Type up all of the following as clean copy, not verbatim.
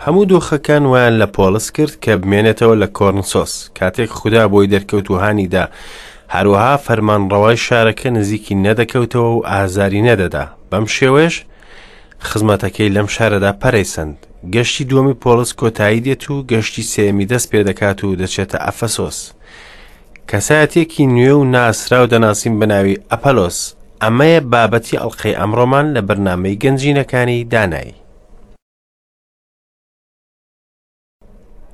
هەموو دۆخەکان وایان لە پۆڵس کرد کە بمێنێتەوە لە کۆرنسۆس، کاتێک خودا بۆی دەرکەوت و هانی دا، هەروەها فەرمانڕەوای شارەکە نزیکی نەدەکەوتەوە و ئازاری نەدەدا، بەم شێوەیەش خزمەتەکەی لەم شارەدا پەرەی سەند. گەشتی دووەمی پۆڵس کۆتایی دێت و گەشتی سێیەمی دەست پێ دەکات و دەچێتە ئەفەسۆس. کەسایەتییەکی نوێ و ناسراو دەناسین بە ناوی ئەپەلۆس. ئەمەیە بابەتی ئەڵقەی ئەمڕۆمان لە بەرنامەی گەنجینەکانی دانایی.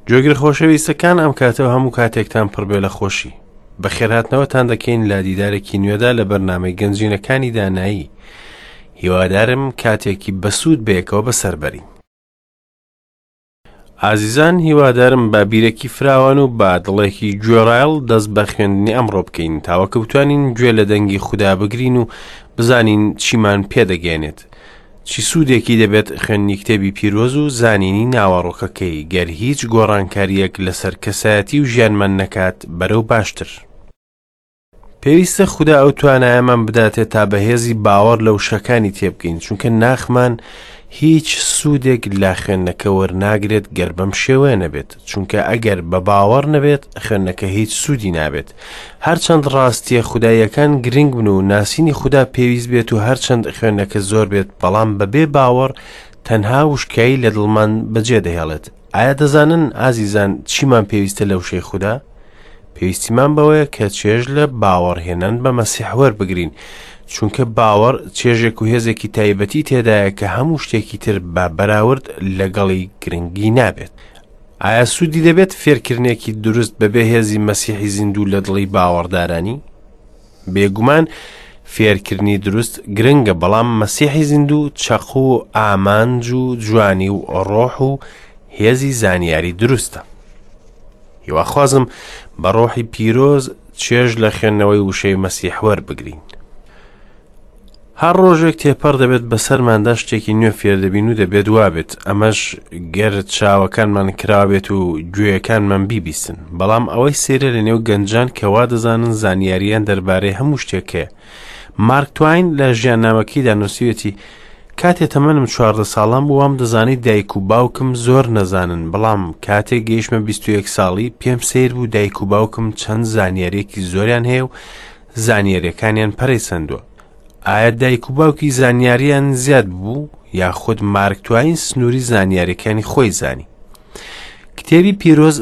گوێگرە خۆشەویستەکان ئەم کاتە و هەموو کاتێکتان پڕبێ لە خۆشی. بەخێرهاتنەوەتان دەکەین لە دیدارێکی نوێدا لە بەرنامەی گەنجینەکانی دانایی. هیوادارم کاتێکی بەسوود بەیەکەوە بەسەر بەرین. ئازیزان هیوادارم بە بیرێکی فراوان و بە دڵێکی گوێڕایەڵ دەست بە خوێندنی ئەمڕۆ بکەین تاوەکە بتوانین گوێ لە دەنگی خودا بگرین و بزانین چیمان پێدەگەێنێت چی سوودێکی دەبێت خوێندنی کتێبی پیرۆز و زانینی ناوەڕۆکەکەی گەر هیچ گۆڕانکارییەک لەسەر کەسایەتی و ژیانمان نەکات بەرەو باشتر. پێویستە خودا ئەو توانایەمان بداتێ تا بە هێزی باوەڕ لە وشەکانی تێبگەین چونکە ناخمان هیچ سوودێک لە خوێندنەکە وەرناگرێت گەر بەم شێوەیە نەبێت چونکە ئەگەر بە باوەڕ نەبێت خوێندنەکە هیچ سوودی نابێت هەرچەند ڕاستیە خوداییەکان گرنگ بن و ناسینی خودا پێویست بێت و هەرچەند خوێندنەکە زۆر بێت بەڵام بەبێ باوەڕ تەنها وشکایی لە دڵمان بەجێ دەهێڵێت ئایا دەزانن ئازیزان چیمان پێویستە لە وشەی خودا؟ پێویستیمان بەوەیە کە چێژ لە باوەڕهێنان بە مەسیح وەربگرین چونکە باوەڕ چێژێک و هێزێکی تایبەتی تێدایە کە هەموو شتێکی تر بە بەراورد لەگەڵی گرنگی نابێت. ئایا سوودی دەبێت فێرکردنێکی دروست بەبێ هێزی مەسیحی زیندوو لە دڵی باوەڕدارانی؟ بێگومان فێرکردنی دروست گرنگە بەڵام مەسیحی زیندوو چەقو و ئامانج و جوانی و ڕۆح و هێزی زانیاری دروستە. هیواخوازم بە ڕۆحی پیرۆز چێژ لە خوێندنەوەی وشەی مەسیح وەربگرین. هەر ڕۆژێک تێپەڕ دەبێت بەسەرماندا شتێکی نوێ فێردەبین و دەبێت وابێت ئەمەش گەر چاوەکانمان کراوێت و گوێیەکانمان بیبیستن بەڵام ئەوەی سەیرە لە نێو گەنجان کە وا دەزانن زانیاریان دەربارەی هەموو شتێک هەیە مارک تواین لە ژیاننامەکەیدا نووسیوێتی کاتێ تەمەنم 14 ساڵان بوو وام دەزانی دایک و باوکم زۆر نەزانن بەڵام کاتێک گەیشتمە 21 ساڵی پێم سەیر بوو دایک و باوکم چەند زانیاریەکی زۆریان هەیە و زانیاریەکانیان پەرەی سەندووە. ئایا دایک و باوکی زانیاریان زیاد بوو یاخود مارک تواین سنووری زانیاریەکانی خۆی زانی؟ کتێبی پیرۆز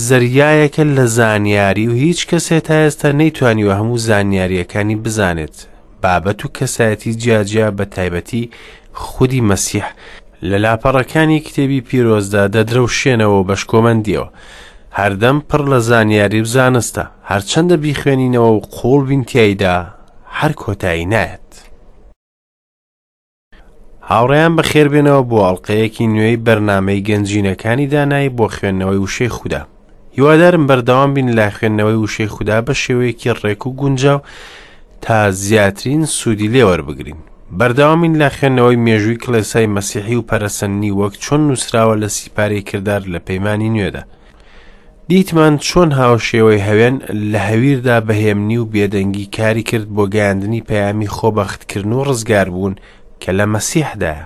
زەریایەکە لە زانیاری و هیچ کەسێ تا ئێستا نەیتوانیوە هەموو زانیاریەکانی بزانێت. بابەت و کەسایەتی جیاجیا بە تایبەتی خودی مەسیح لە لاپەڕەکانی کتێبی پیرۆزدا دەدرەوشێنەوە و بە شکۆمەندیەوە هەردەم پڕ لە زانیاری و زانستە، هەرچەندە بیخوێنینەوە و قووڵ بین تیایدا هەر کۆتایی نایەت. هاوڕێیان بەخێربێنەوە بۆ ئەڵقەیەکی نوێی بەرنامەی گەنجینەکانی دانایی بۆ خوێندنەوەی وشەی خودا. هیوادارم بەردەوام بین لە خوێندنەوەی وشەی خودا بە شێوەیەکی ڕێک و گونجاو تا زیاترین سوودی لێوەربگرین. بەردەوامین لە خوێندنەوەی مێژووی کڵێسای مەسیحی و پەرەسەندنی وەک چۆن نووسراوە لە سیپارەی کردار لە پەیمانی نوێدا. دیتمان چۆن هاوشێوەی هەوێن لە هەویردا بە هێمنی و بێدەنگی کاری کرد بۆ گەیاندنی پەیامی خۆبەختکردن و ڕزگاربوون کە لە مەسیحدایە.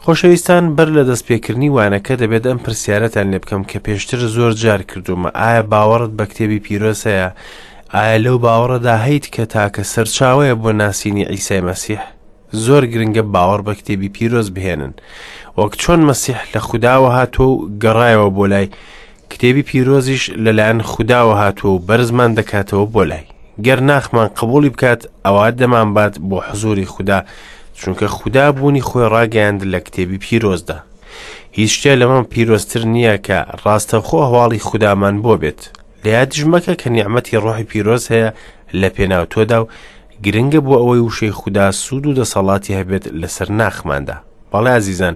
خۆشەویستان بەر لە دەستپێکردنی وانەکە دەبێت ئەم پرسیارەتان لێ بکەم کە پێشتر زۆر جار کردوومە ئایا باوەڕت بە کتێبی پیرۆز هەیە؟ ئایا لەو باوەڕەدا هەیت کە تاکە سەرچاوەیە بۆ ناسینی عیسای مەسیح؟ زۆر گرنگە باوەڕ بە کتێبی پیرۆز بهێنن وەک چۆن مەسیح لە خوداوە هاتووە و گەڕایەوە بۆ لای کتێبی پیرۆزیش لەلایەن خوداوە هاتووە و بەرزمان دەکاتەوە بۆ لای گەر ناخمان قبوڵی بکات ئەوا دەمانبات بۆ حزوری خودا چونکە خودا بوونی خۆی ڕاگەیاند لە کتێبی پیرۆزدا هیچ شتێ لەمە پیرۆزتر نییە کە ڕاستەوخۆ هەواڵی خودامان بۆ بێت لە یادیش مەکە کە نیعمەتی ڕۆحی پیرۆز هەیە لە پێناو تۆدا و گرنگە بۆ ئەوەی وشەی خودا سوود و دەسەڵاتی هەبێت لەسەر ناخماندا بەڵێ ئازیزان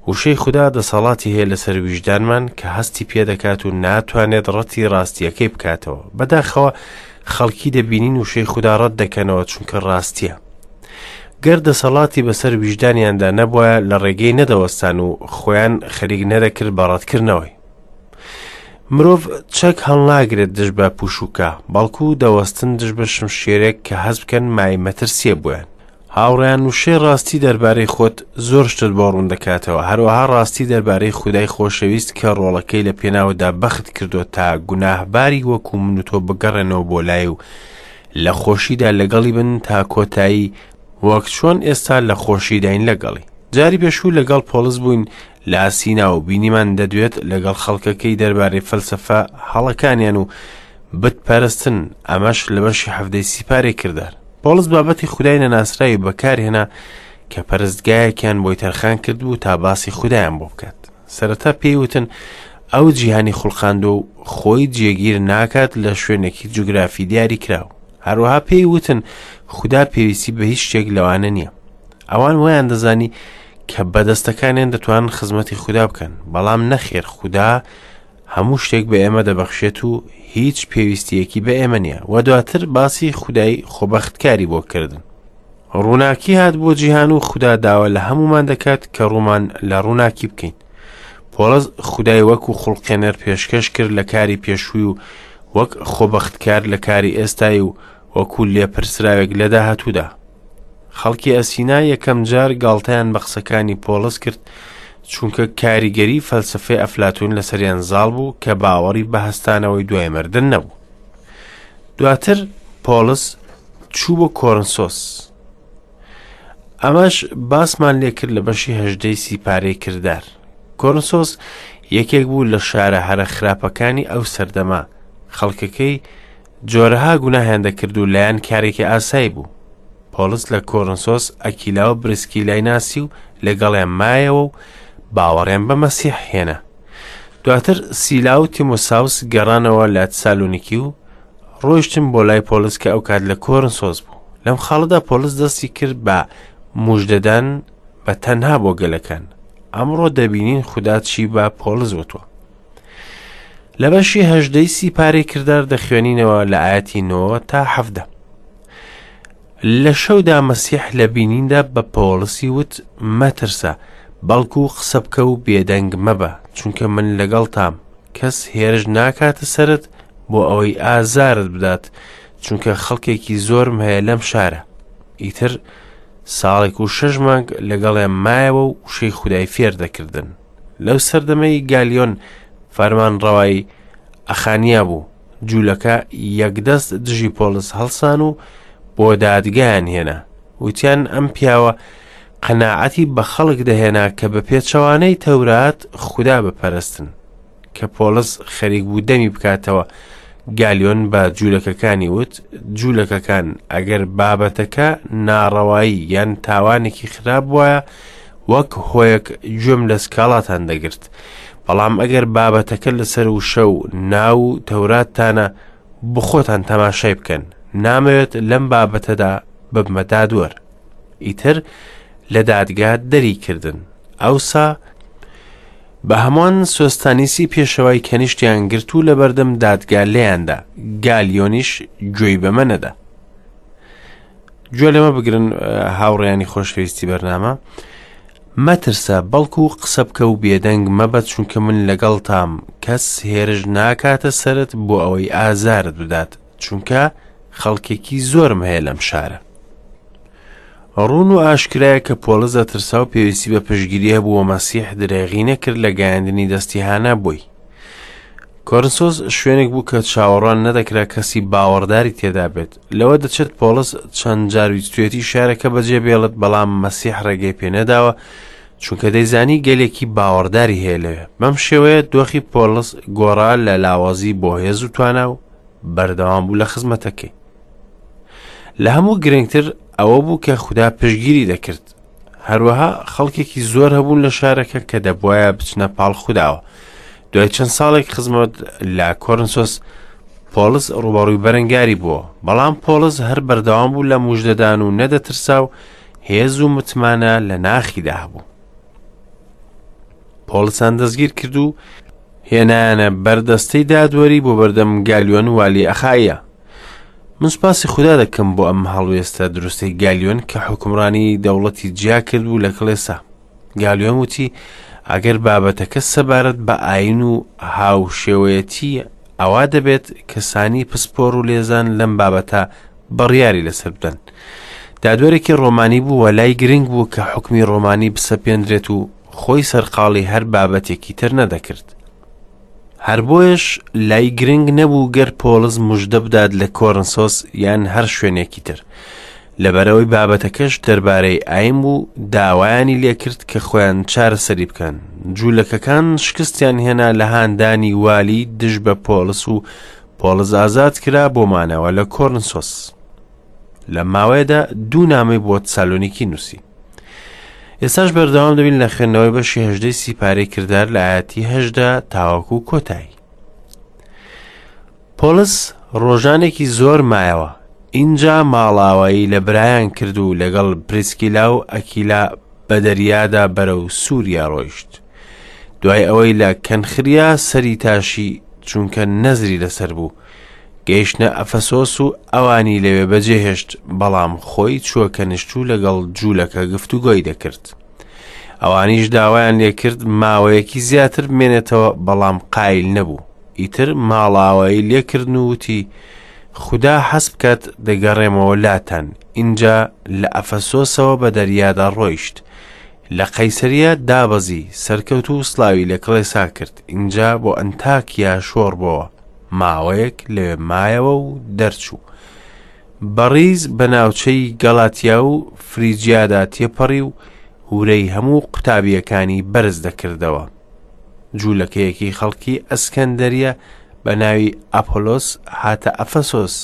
وشەی خودا دەسەڵاتی هەیە لەسەر ویژدانمان کە هەستی پێدەکات و ناتوانێت ڕەتی ڕاستیەکەی بکاتەوە بەداخەوە خەڵکی دەبینین وشەی خودا ڕەت دەکەنەوە چونکە ڕاستیە گەر دەسەڵاتی بەسەر ویژدانیاندا نەبوایە لە ڕێگەی نەدەوەستان و خۆیان خەریک نەدەکرد بە ڕەتکردنەوەی مرۆڤ چەک هەڵناگرێت دژ بە پوشوکە بەڵکو دەوەستن دژ بە شمشێرێک کە هەست بکەن مای مەترسیە بۆیان. هاوڕێیان وشەی ڕاستی دەربارەی خۆت زۆر شتت بۆ ڕوون دەکاتەوە، هەروەها ڕاستی دەربارەی خودای خۆشەویست کە ڕۆڵەکەی لە پێناوتدا بەخت کردووە تا گوناهباری وەکو من و تۆ بگەڕێنەوە بۆ لای و لە خۆشیدا لەگەڵی بن تا کۆتایی وەک چۆن ئێستا لە خۆشیداین لەگەڵی. جاری پێشوو لەگەڵ پۆڵس بووین لە ئاسینا و بینیمان دەدوێت لەگەڵ خەڵکەکەی دەربارەی فەلسەفە هەڵەکانیان و بت پەرستن، ئەمەش لە بەشی حەڤدەی سیپارەی کردار. پۆڵس بابەتی خودای نەناسراوی بەکارهێنا کە پەرستگایەکیان بۆی تەرخان کردبوو تا باسی خودایان بۆ بکات. سەرەتا پێی وتن ئەو جیهانی خوڵقاندووە و خۆی جێگیر ناکات لە شوێنێکی جوگرافی دیاریکراو. هەروەها پێی وتن خودا پێویستی بە هیچ شتێک لەوانە نییە. ئەوان وایان دەزانی کە بەدەستەکانیان دەتوانن خزمەتی خودا بکەن، بەڵام نەخێر خودا هەموو شتێک بە ئێمە دەبەخشێت و هیچ پێویستیەکی بە ئێمە نییە و دواتر باسی خودای خۆبەختکاری بۆ کردن. ڕووناکی هات بۆ جیهان و خودا داوا لە هەمومان دەکات کە ڕوومان لە ڕووناکی بکەین. پۆڵس خودای وەکو خوڵقێنەر پێشکەش کرد لە کاری پێشووی و وەک خۆبەختکار لە کاری ئێستای و وەکو لێپرسراوێک لە داهاتوودا. خەڵکی ئەسینا یەکەم جار گاڵتەیان بە قسەکانی پۆڵس کرد چونکە کاریگەری فەلسەفەی ئەفلاتون لەسەریان زاڵ بوو کە باوەڕی بە هەستانەوەی دوای مردن نەبوو. دواتر پۆڵس چوو بۆ کۆرنسۆس. ئەمەش باسمان لێکرد لە بەشی هەژدەی سیپارەی کردار. کۆرنسۆس یەکێک بوو لە شارە هەرە خراپەکانی ئەو سەردەمە، خەڵکەکەی جۆرەها گوناهیان دەکرد و لایان کارێکی ئاسایی بوو. پۆڵس لە کۆرنسۆس ئەکیلا و بریسکیلای ناسی و لەگەڵیان مایەوە و باوەڕیان بە مەسیح هێنا. دواتر سیلا و تیمۆساوس گەڕانەوە لە تسالونیکی و ڕۆیشتن بۆ لای پۆڵس کە ئەو کات لە کۆرنسۆس بوو. لەم خاڵەدا پۆڵس دەستی کرد بە موژدەدان بە تەنها بۆ گەلەکان. ئەمڕۆ دەبینین خودا چی بە پۆڵس وتووە. لە بەشی هەژدەی سیپارەی کردار دەخوێنینەوە لە ئاەتی نۆ تا حەفدە. لە شەودا مەسیح لە بینیندا بە پۆڵسی وت مەترسە، بەڵکو قسە بکە و بێدەنگ مەبە، چونکە من لەگەڵتام، کەس هێرش ناکاتە سەرت بۆ ئەوەی ئازارت بدات، چونکە خەڵکێکی زۆرم هەیە لەم شارە. ئیتر ساڵێک و شەش مانگ لەگەڵیان مایەوە و وشەی خودای فێر دەکردن. لەو سەردەمەی گالیۆن فەرمانڕەوای ئەخانیا بوو، جوولەکە یەکدەست دژی پۆڵس هەڵسان و بۆ دادگایان هێنا. وتیان ئەم پیاوە قەناعەتی بە خەڵک دەهێنا کە بە پێچەوانەی تەورات خودا بپەرستن. کە پۆڵس خەریک بوو دەمی بکاتەوە، گالیۆن بە جوولەکەکانی وت، جوولەکەکان، ئەگەر بابەتەکە ناڕەوایی یان تاوانێکی خراپ بوایە، وەک هۆیەک گوێم لە سکاڵاتان دەگرت. بەڵام ئەگەر بابەتەکە لەسەر وشە و ناو و تەوراتتانە، بخۆتان تەماشای بکەن. نامەوێت لەم بابەتەدا ببمە دادوەر. ئیتر لە دادگا دەری کردن. ئەوسا بە هەمووان سۆستانیسی پێشەوای کەنیشتیان گرت و لە بەردەم دادگا لێیاندا، گالیۆنیش گوێی بەمە نەدا. گوێ لەمە بگرن هاوڕێیانی خۆشەویستی بەرنامە، مەترسە بەڵکو قسە بکە و بێدەنگ مەبە چونکە من لەگەڵتام، کەس هێرش ناکاتە سەرت بۆ ئەوەی ئازارت بدات، چونکە خەڵکێکی زۆرم هەیە لەم شارە. ڕوون و ئاشکرایە کە پۆڵس دەترسا و پێویستی بە پشتگیری هەبوو و مەسیح درێغی نەکرد لە گەیاندنی دەستی هانا بۆی. کۆرنسۆس شوێنێک بوو کە چاوەڕوان نەدەکرا کەسی باوەڕداری تێدا بێت. لەوە دەچێت پۆڵس چەند جار ویستویەتی شارەکە بەجێ بێڵێت، بەڵام مەسیح ڕێگەی پێ نەداوە چونکە دەیزانی گەلێکی باوەڕداری هەیە لەوێ. بەم شێوەیە دۆخی پۆڵس گۆڕا لە لاوازی بۆ هێز و توانا و بەردەوام بوو لە خزمەتەکەی. لە هەموو گرنگتر ئەوە بوو کە خودا پشتگیری دەکرد. هەروەها خەڵکێکی زۆر هەبوون لە شارەکە کە دەبواە بچنە پاڵ خوداوە. دوای چەند ساڵێک خزمەت لە کۆرنسۆس پۆڵس ڕوبەڕووی بەرەنگاری بووە، بەڵام پۆڵس هەر بەردەوام بوو لە موژدەدان و نەدەترسا و هێز و متمانە لە ناخیدا هەبوو. پۆڵسان دەستگیر کرد و هێنایانە بەردەستەی دادوەری بۆ بەردەم گالیۆن والی ئەخایە. من سوپاسی خودا دەکەم بۆ ئەم هەڵوێستە دروستەی گالیۆن کە حوکمڕانی دەوڵەتی جیا کرد بوو لە کڵێسا. گالیۆن وتی ئەگەر بابەتەکە سەبارەت بە ئاین و هاوشێوەیەتی ئەوا دەبێت کەسانی پسپۆڕ و لێزان لەم بابەتە بڕیاری لەسەر بدەن. دادوەرێکی ڕۆمانی بوو و لای گرنگ بوو کە حوکمی ڕۆمانی بسەپێندرێت و خۆی سەرقاڵی هەر بابەتێکی تر نەدەکرد. هەر بۆیەش لای گرنگ نەبوو گەر پۆڵس مژدە بدات لە کۆرنسۆس یان هەر شوێنێکی تر. لەبەرئەوەی بابەتەکەش دەربارەی ئاین بوو داوایانی لێکرد کە خۆیان چارەسەری بکەن. جوولەکەکان شکستیان هێنا لە هاندانی والی دژ بە پۆڵس و پۆڵس ئازاد کرا بۆ مانەوە لە کۆرنسۆس. لەم ماوەیەدا دوو نامەی بۆ تسالۆنیکی نووسی. ئێستاش بەردەوام دەبین لە خوێندنەوەی بەشی هەژدەی سیپارەی کردار لە ئاەتی هەژدە تاوەکو کۆتایی. پۆڵس ڕۆژانێکی زۆر مایەوە، ئینجا ماڵاوایی لە برایان کرد و لەگەڵ پریسکیلا و ئەکیلا بە دەریادا بەرەو سووریا ڕۆیشت. دوای ئەوەی لە کەنخریا سەری تاشی چونکە نەزری لەسەر بوو، گەیشتنە ئەفەسۆس و ئەوانی لەوێ بەجێهێشت، بەڵام خۆی چووە کەنیشت و لەگەڵ جوولەکە گفتوگۆی دەکرد. ئەوانیش داوایان لێکرد ماوەیەکی زیاتر بمێنێتەوە، بەڵام قایل نەبوو. ئیتر ماڵاوایی لێکردن و وتی، خودا حەز بکات دەگەڕێمەوە لاتان. ئینجا لە ئەفەسۆسەوە بە دەریادا ڕۆیشت. لە قەیسەرییە دابەزی، سەرکەوت و سڵاوی لە کڵێسا کرد. ئینجا بۆ ئەنتاکیا شۆڕ بۆوە. ماوەیەک لەوێ مایەوە و دەرچوو. بە ڕیز بە ناوچەی گەڵاتیا و فریجیادا تێپەڕی و ورەی هەموو قوتابییەکانی بەرز دەکردەوە. جوولەکەیەکی خەڵکی ئەسکەندەریە بە ناوی ئەپۆلۆس هاتە ئەفەسۆس،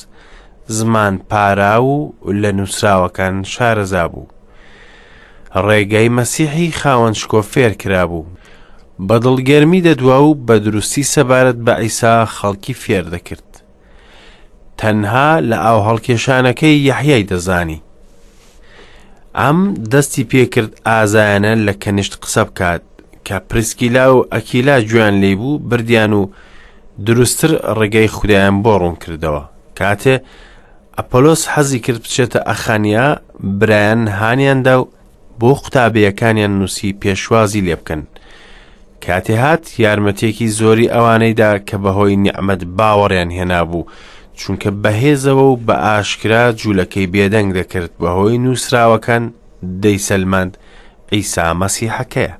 زمان پاراو و لە نووسراوەکان شارەزا بوو. ڕێگای مەسیحی خاوەن شکۆ فێر کرابوو. بە دڵگەرمی دەدوا و بە دروستی سەبارەت بە عیسا خەڵکی فێر دەکرد. تەنها لە ئاو هەڵکێشانەکەی یەحیای دەزانی. ئەم دەستی پێکرد ئازایانە لە کەنیشت قسە بکات کە پرسکیلا و ئەکیلا گوێیان لێی بوو بردیان و دروستتر ڕێگەی خودایان بۆ ڕوون کردەوە. کاتێ ئەپۆلۆس حەزی کرد بچێتە ئەخانیا برایان هانیان دا و بۆ قوتابییەکانیان نووسی پێشوازی لێ بکەن. کاتێ هات یارمەتیەکی زۆری ئەوانەی دا کە بەهۆی نیعمەت باوەڕیان هێنابوو، چونکە بەهێزەوە و بە ئاشکرا جوولەکەی بێدەنگ دەکرد بەهۆی نووسراوەکان دەیسەلماند عیسا مەسیحەکەیە.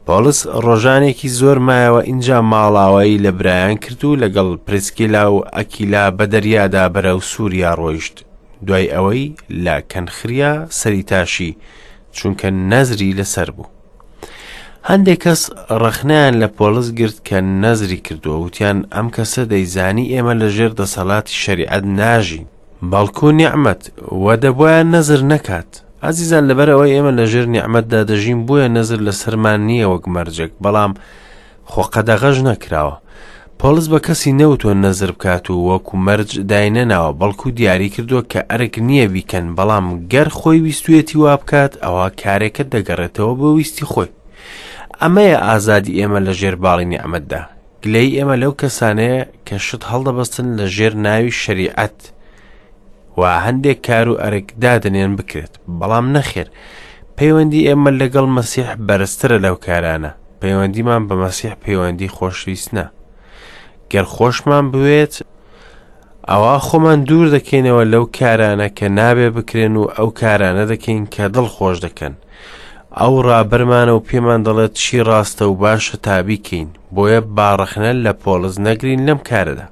پۆڵس ڕۆژانێکی زۆر مایەوە ئینجا ماڵاوایی لە برایان کرد و لەگەڵ پرسکیلا و ئەکیلا بە دەریادا بەرەو سووریا ڕۆیشت دوای ئەوەی لە کەنخریا سەری تاشی چونکە نەزری لەسەر بوو. هەندێک کەس ڕەخنەیان لە پۆڵس گرت کە نەزری کردووە وتیان ئەم کەسە دەیزانی ئێمە لە ژێر دەسەڵاتی شەریعەت ناژین بەڵکو نیعمەت وە دەبوایە نەزر نەکات ئازیزان لەبەر ئەوەی ئێمە لە ژێر نیعمەتدا دەژین بۆیە نەزر لەسەرمان نییە وەک مەرجێک بەڵام خۆ قەدەغەش نەکراوە. پۆڵس بە کەسی نەوتووە نەزر بکات و وەکو مەرج داینەناوە، بەڵکو دیاری کردووە کە ئەرک نییە بیکەن، بەڵام گەر خۆی ویستویەتی وا بکات، ئەوا کارێکە دەگەڕێتەوە بۆ ویستی خۆی. ئەمەیە ئازادی ئێمە لە ژێر باڵی نیعمەتدا. گلەیی ئێمە لەو کەسانەیە کە شت هەڵدەبەستن لە ژێر ناوی شەریعەت و هەندێک کار و ئەرک دادەنێن بکرێت، بەڵام نەخێر، پەیوەندی ئێمە لەگەڵ مەسیح بەرزترە لەو کارانە. پەیوەندیمان بە مەسیح پەیوەندی خۆشویستنە. گەر خۆشمان بوێت، ئەوا خۆمان دوور دەکەینەوە لەو کارانە کە نابێ بکرێن و ئەو کارانە دەکەین کە دڵ خۆش دەکەن. ئەو ڕابەرمانە و پێمان دەڵێت چی ڕاستە و باشە تا بیکەین، بۆیە با ڕەخنە لە پۆڵس نەگرین لەم کارەدا.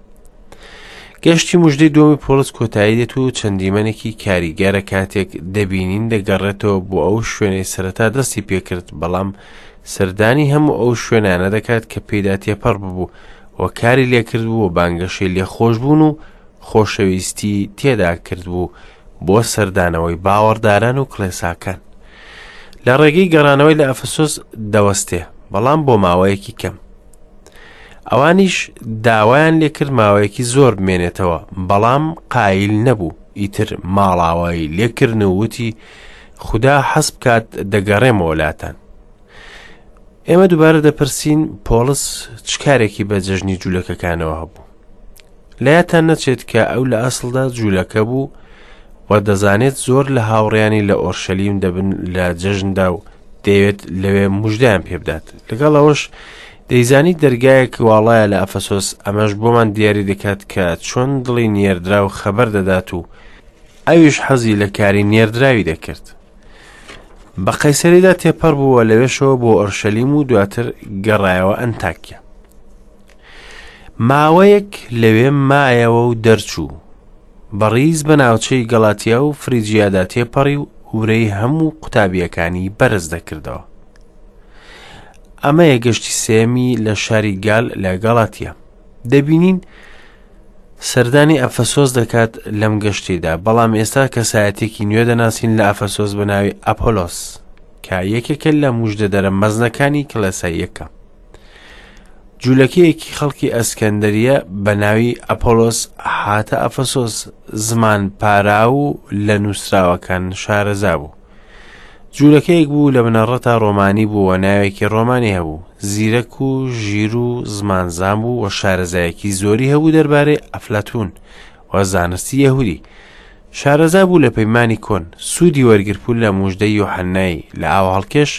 گەشتی مژدەی دووەمی پۆڵس کۆتایی دێت و چەند دیمەنێکی کاریگەرە کاتێک دەبینین دەگەڕێتەوە بۆ ئەو شوێنەی سەرەتا دەستی پێکرد، بەڵام سەردانی هەموو ئەو شوێنانە دەکات کە پێیدا تێپەڕ ببوو و کاری لێکردبوو و بانگەشەی لێخۆشبوون و خۆشەویستی تێدا کردبوو بۆ سەردانەوەی باوەڕداران و کڵێساکان. لە ڕێگەی گەڕانەوەی لە ئەفەسۆس دەوەستێ، بەڵام بۆ ماوەیەکی کەم. ئەوانیش داوایان لێکرد ماوەیەکی زۆر بمێنێتەوە، بەڵام قایل نەبوو، ئیتر ماڵاوایی لێکردن و وتی، خودا حەز بکات دەگەڕێمەوە لاتان. ئێمە دووبارە دەپرسین پۆڵس چ کارێکی بە جەژنی جوولەکەکانەوە هەبوو؟ لایەتان نەچێت کە ئەو لە ئەسڵدا جوولەکە بوو و دەزانێت زۆر لە هاوڕیانی لە ئۆرشەلیم دەبن لە جەژندا و دەیەوێت لەوێ مژدەیان پێبدات لەگەڵ ئەوەش دەیزانی دەرگایەک واڵایە لە ئەفەسۆس ئەمەش بۆمان دیاری دەکات کە چۆن دڵی نێردراو خەبەر دەدات و ئەویش حەزی لە کاری نێردراوی دەکرد. بە قەیسەریدا تێپەڕ بوو و لەوێشەوە بۆ ئۆرشەلیم و دواتر گەڕایەوە ئەنتاکیا. ماوەیەک لەوێ مایەوە و دەرچوو. بە ڕیز بە ناوچەی گەڵاتیا و فریجیادا تێپەڕی و ورەی هەموو قوتابییەکانی بەرز دەکردەوە. ئەمەیە گەشتی سێیەمی لە شاری گال لە گەڵاتیا. دەبینین سەردانی ئەفەسۆس دەکات لەم گەشتیدا، بەڵام ئێستا کەسایەتێکی نوێ دەناسین لە ئەفەسۆس بە ناوی ئەپۆلۆس کە یەکێکە لە مژدەدەرە مەزنەکانی کڵێسای یەکەم. جوولەکەیەکی خەڵکی ئەسکەندەریە بە ناوی ئەپۆلۆس هاتە ئەفەسۆس، زمان پاراو و لە نووسراوەکان شارەزا بوو. جوولەکەیەک بوو لە بنەڕەتا ڕۆمانی بوو و ناوێکی ڕۆمانی هەبوو، زیرەک و ژیر و زمانزان بوو و شارەزایەکی زۆری هەبوو دەربارەی ئەفلاتون و زانستی یەهودی. شارەزا بوو لە پەیمانی کۆن، سوودی وەرگرتبوو لە موژدەی یۆحەنای لە ئاوهەڵکێش،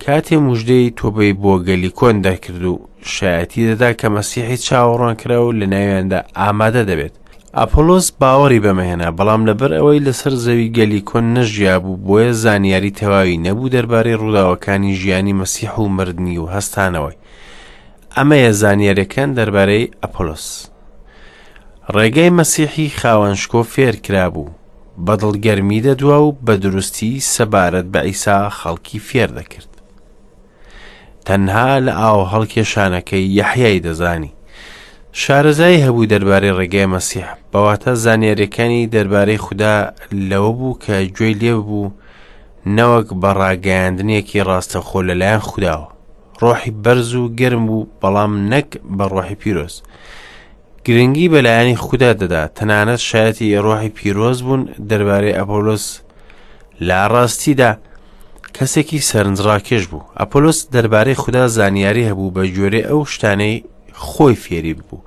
کاتێ موژدەی تۆبەی بۆ گەلی کۆن دەکرد و شایەتی دەدا کە مەسیحی چاوەڕوانکراو لە ناویاندا ئامادە دەبێت. ئەپۆلۆس باوەڕی بەمە هێنا، بەڵام لەبەر ئەوەی لەسەر زەوی گەلی کۆن نەژیابوو، بۆیە زانیاری تەواوی نەبوو دەربارەی ڕووداوەکانی ژیانی مەسیح و مردنی و هەستانەوەی. ئەمەیە زانیاریەکان دەربارەی ئەپۆلۆس. ڕێگای مەسیحی خاوەن شکۆ فێر کرابوو، بە دڵگەرمی دەدوا و بە دروستی سەبارەت بە عیسا خەڵکی فێر دەکرد. تەنها لە ئاو هەڵکێشانەکەی یەحیای دەزانی. شارەزایی هەبوو دەربارەی ڕێگای مەسیح، بەواتە زانیاریەکانی دەربارەی خودا لەوە بوو کە گوێی لێ ببوو نەوەک بە ڕاگەیاندنێکی ڕاستەخۆ لەلایەن خوداوە. ڕۆحی بەرز و گەرم بوو بەڵام نەک بە ڕۆحی پیرۆز. گرنگی بە لایەنی خودا دەدا، تەنانەت شایەتی ڕۆحی پیرۆز بوون دەربارەی ئەپۆلۆس لە ڕاستیدا کەسێکی سەرنجڕاکێش بوو. ئەپۆلۆس دەربارەی خودا زانیاری هەبوو بە گوێرەی ئەو شتانەی خۆی فێری ببوو.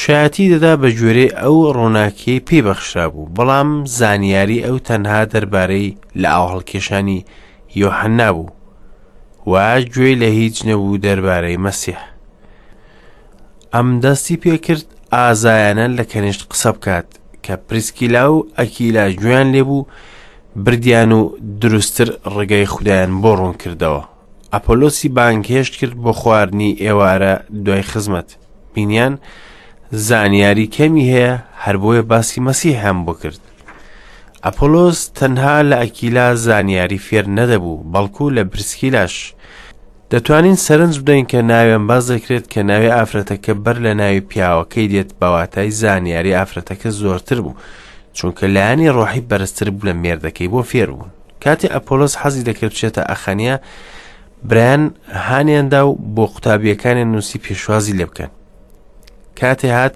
شایەتی دەدا بە گوێرەی ئەو ڕووناکیەی پێی بەخشرا بوو، بەڵام زانیاری ئەو تەنها دەربارەی لە ئاوهەڵکێشانی یۆحەننا بوو و گوێی لە هیچ نەبوو دەربارەی مەسیح. ئەم دەستی پێکرد ئازایانە لە کەنیشت قسە بکات کە پریسکیلا و ئەکیلا گوێیان لێبوو بردیان و دروستتر ڕێگای خودایان بۆ ڕوون کردەوە. ئەپۆلۆسی بانگهێشت کرد بۆ خواردنی ئێوارە دوای خزمەت. بینیان زانیاری کەمی هەیە هەر بۆیە باسی مەسیحیان بۆ کرد. ئەپۆلۆس تەنها لە ئەکیلا زانیاری فێر نەدەبوو بەڵکو لە پریسکیلاش. دەتوانین سەرنج بدەین کە ناوێن باس دەکرێت کە ناوی ئافرەتەکە بەر لە ناوی پیاوەکەی دێت بە واتای زانیاری ئافرەتەکە زۆرتر بوو چونکە لایەنی ڕۆحی بەرزتر بوو لە مێردەکەی بۆ فێربوون کاتێ ئەپۆلۆس حەزی دەکرد بچێتە ئەخەنیا برایان هانیاندا و بۆ قوتابیەکانیان نووسی پێشوازی لێ بکەن کاتێ هات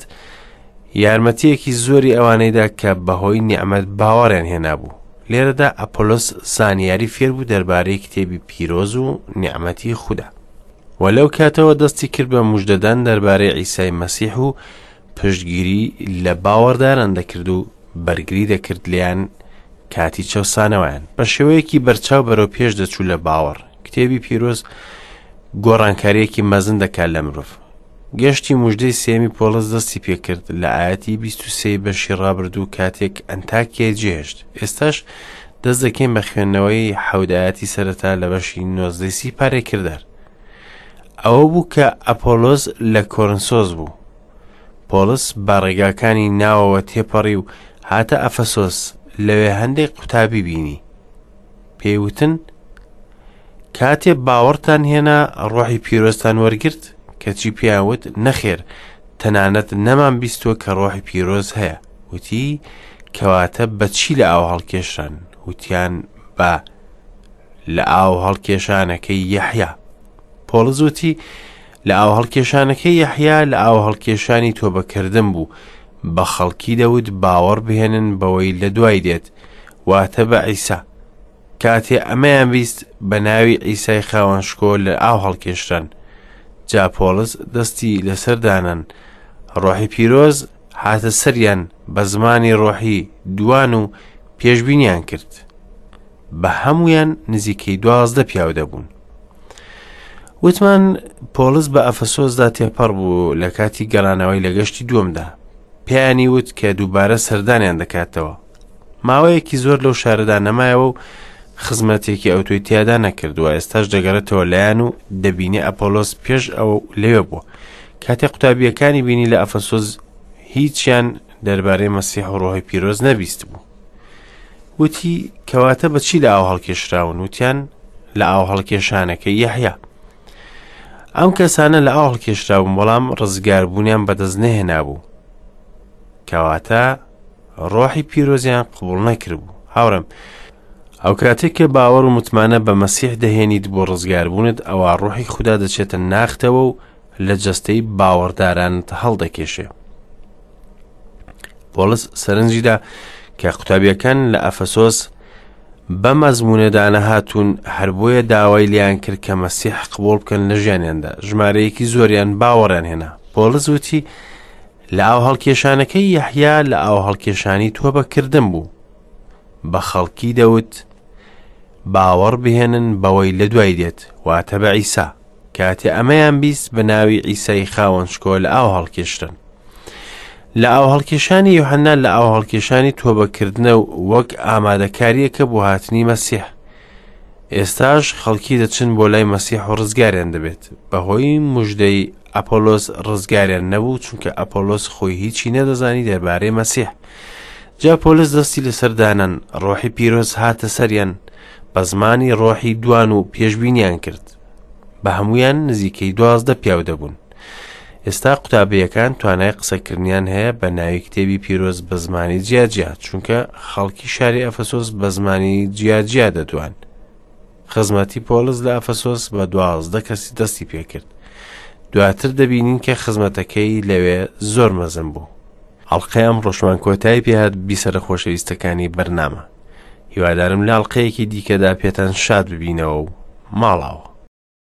یارمەتیەکی زۆری ئەوانەیدا کە بەهۆی نیعممەد باوەڕیان هێنابوو لێرەدا ئەپۆلۆس زانیاری فێربوو دەربارەی کتێبی پیرۆز و نیعمەتی خودا و لەو کاتەوە دەستی کرد بە مژدەدان دەربارەی عیسای مەسیح و پشتگیری لە باوەڕداران دەکرد و بەرگری دەکرد لێیان کاتی چەوسانەوەیان بە شێوەیەکی بەرچاو بەرەو پێش دەچوو لە باوەڕ کتێبی پیرۆز گۆڕانکاریەکی مەزن دەکات لە مرۆڤ گەشتی مژدەی سێمی پۆڵس دەستی پێکرد لە ئاەتی 23 بەشی ڕابردوو کاتێک ئەنتاکیای جێهێشت ئێستاش دەست دەکەین بە خوێندنەوەی حەودایەتی سەرەتا لە بەشی نۆزدەی سی پارەی کردار ئەوە بوو کە ئەپۆلۆس لە کۆرنسۆس بوو پۆڵس بە ڕێگاکانی ناوەوە تێپەڕی و هاتە ئەفەسۆس لەوێ هەندێک قوتابی بینی پێی وتن کاتێ باوەڕتان هێنا ڕۆحی پیرۆزتان وەرگرت کەچی پێیان وت نەخێر تەنانەت نەمان بیستووە کە ڕۆحی پیرۆز هەیە وتی کەواتە بەچی لە ئاو هەڵکێشران وتیان بە لە ئاو هەڵکێشانەکەی یەحیا پۆڵس وتی لە ئاو هەڵکێشانەکەی یەحیا لە ئاو هەڵکێشانی تۆبەکردن بوو بە خەڵکی دەوت باوەڕ بهێنن بەوەی لە دوای دێت واتە بە عیسا کاتێ ئەمەیان بیست بە ناوی عیسای خاوەن شکۆ لە ئاو هەڵکێشران جا پۆڵس دەستی لەسەر دانان ڕۆحی پیرۆز هاتە سەریان بە زمانی ڕۆحی دوان و پێشبینیان کرد بە هەمویان نزیکەی 12 پیاو دەبوون وتمان پۆڵس بە ئەفەسۆسدا تێپەڕ بوو لە کاتی گەڕانەوەی لە گەشتی دووەمدا پێیانی وت کە دووبارە سەردانیان دەکاتەوە. ماوەیەکی زۆر لەو شارەدا نەمایەوە و خزمەتێکی ئەوتۆی تیادا نەکردووە ئێستاش دەگەڕێتەوە لایەن و دەبینێ ئەپۆلۆس پێش ئەوە لەوێ بووە کاتێ قوتابیەکانی بینی لە ئەفەسۆس هیچیان دەربارەی مەسیح و ڕۆحی پیرۆز نەبیست بوو وتی کەواتە بە چی لە ئاو هەڵکێشراون وتیان لە ئاو هەڵکێشانەکەی یەحیا ئەم کەسانە لە ئاو هەڵکێشرابوون بەڵام ڕزگاربوونیان بەدەست نەهێنابوو کەواتە ڕۆحی پیرۆزیان قبوڵ نەکردبوو هاوڕێم ئەو کاتێک کە باوەڕ و متمانە بە مەسیح دەهێنیت بۆ ڕزگاربوونت ئەوە ڕۆحی خودا دەچێتە ناختەوە و لە جەستەی باوەڕدارانت هەڵدەکێشێ پۆڵس سەرنجیدا کە قوتابیەکان لە ئەفەسۆس بە مەزمونەدا نەهاتوون هەر بۆیە داوای لیان کرد کە مەسیح قبوڵ بکەن لە ژیانیاندا ژمارەیەکی زۆریان باوەڕیان هێنا پۆڵس وتی لە ئاو هەڵکێشانەکەی یەحیا لە ئاو هەڵکێشانی تۆبەکردن بوو بە خەڵکی دەوت باوەڕ بهێنن بەوەی لە دوای دێت واتە بە عیسا کاتێ ئەمەیان بیست بە ناوی عیسای خاوەن شکۆ لە ئاو هەڵکێشرن لە ئاو هەڵکێشانی یوحەنا لە ئاو هەڵکێشانی تۆبەکردنە و وەک ئامادەکاریەکە بۆ هاتنی مەسیح ئێستاش خەڵکی دەچن بۆ لای مەسیح و ڕزگاریان دەبێت بەهۆی مژدەی ئەپۆلۆس ڕزگاریان نەبوو چونکە ئەپۆلۆس خۆی هیچی نەدەزانی دەربارەی مەسیح جا پۆلس دەستی لەسەر دانان ڕۆحی پیرۆز هاتە سەریان بە زمانی ڕۆحی دوان و پێشبینیان کرد بە هەمویان نزیکەی دوازدە پیاو دەبوون ئێستا قوتابیەکان توانای قسەکردنیان هەیە بە ناوی کتێبی پیرۆز بە زمانی جیاجیا چونکە خەڵکی شاری ئەفەسۆس بە زمانی جیاجیا دەدوان خزمەتی پۆلس لە ئەفەسۆس بە دوازدە کەسی دەستی پێکرد دواتر دەبینین کە خزمەتەکەی لەوێ زۆر مەزن بوو ئەڵقەی ئەمڕۆشمان کۆتایی پێهات بیسەرە خۆشەویستەکانی بەرنامە هیوادارم لە ئەڵقەیەکی دیکەدا پێتان شاد ببینەوە و ماڵاوە.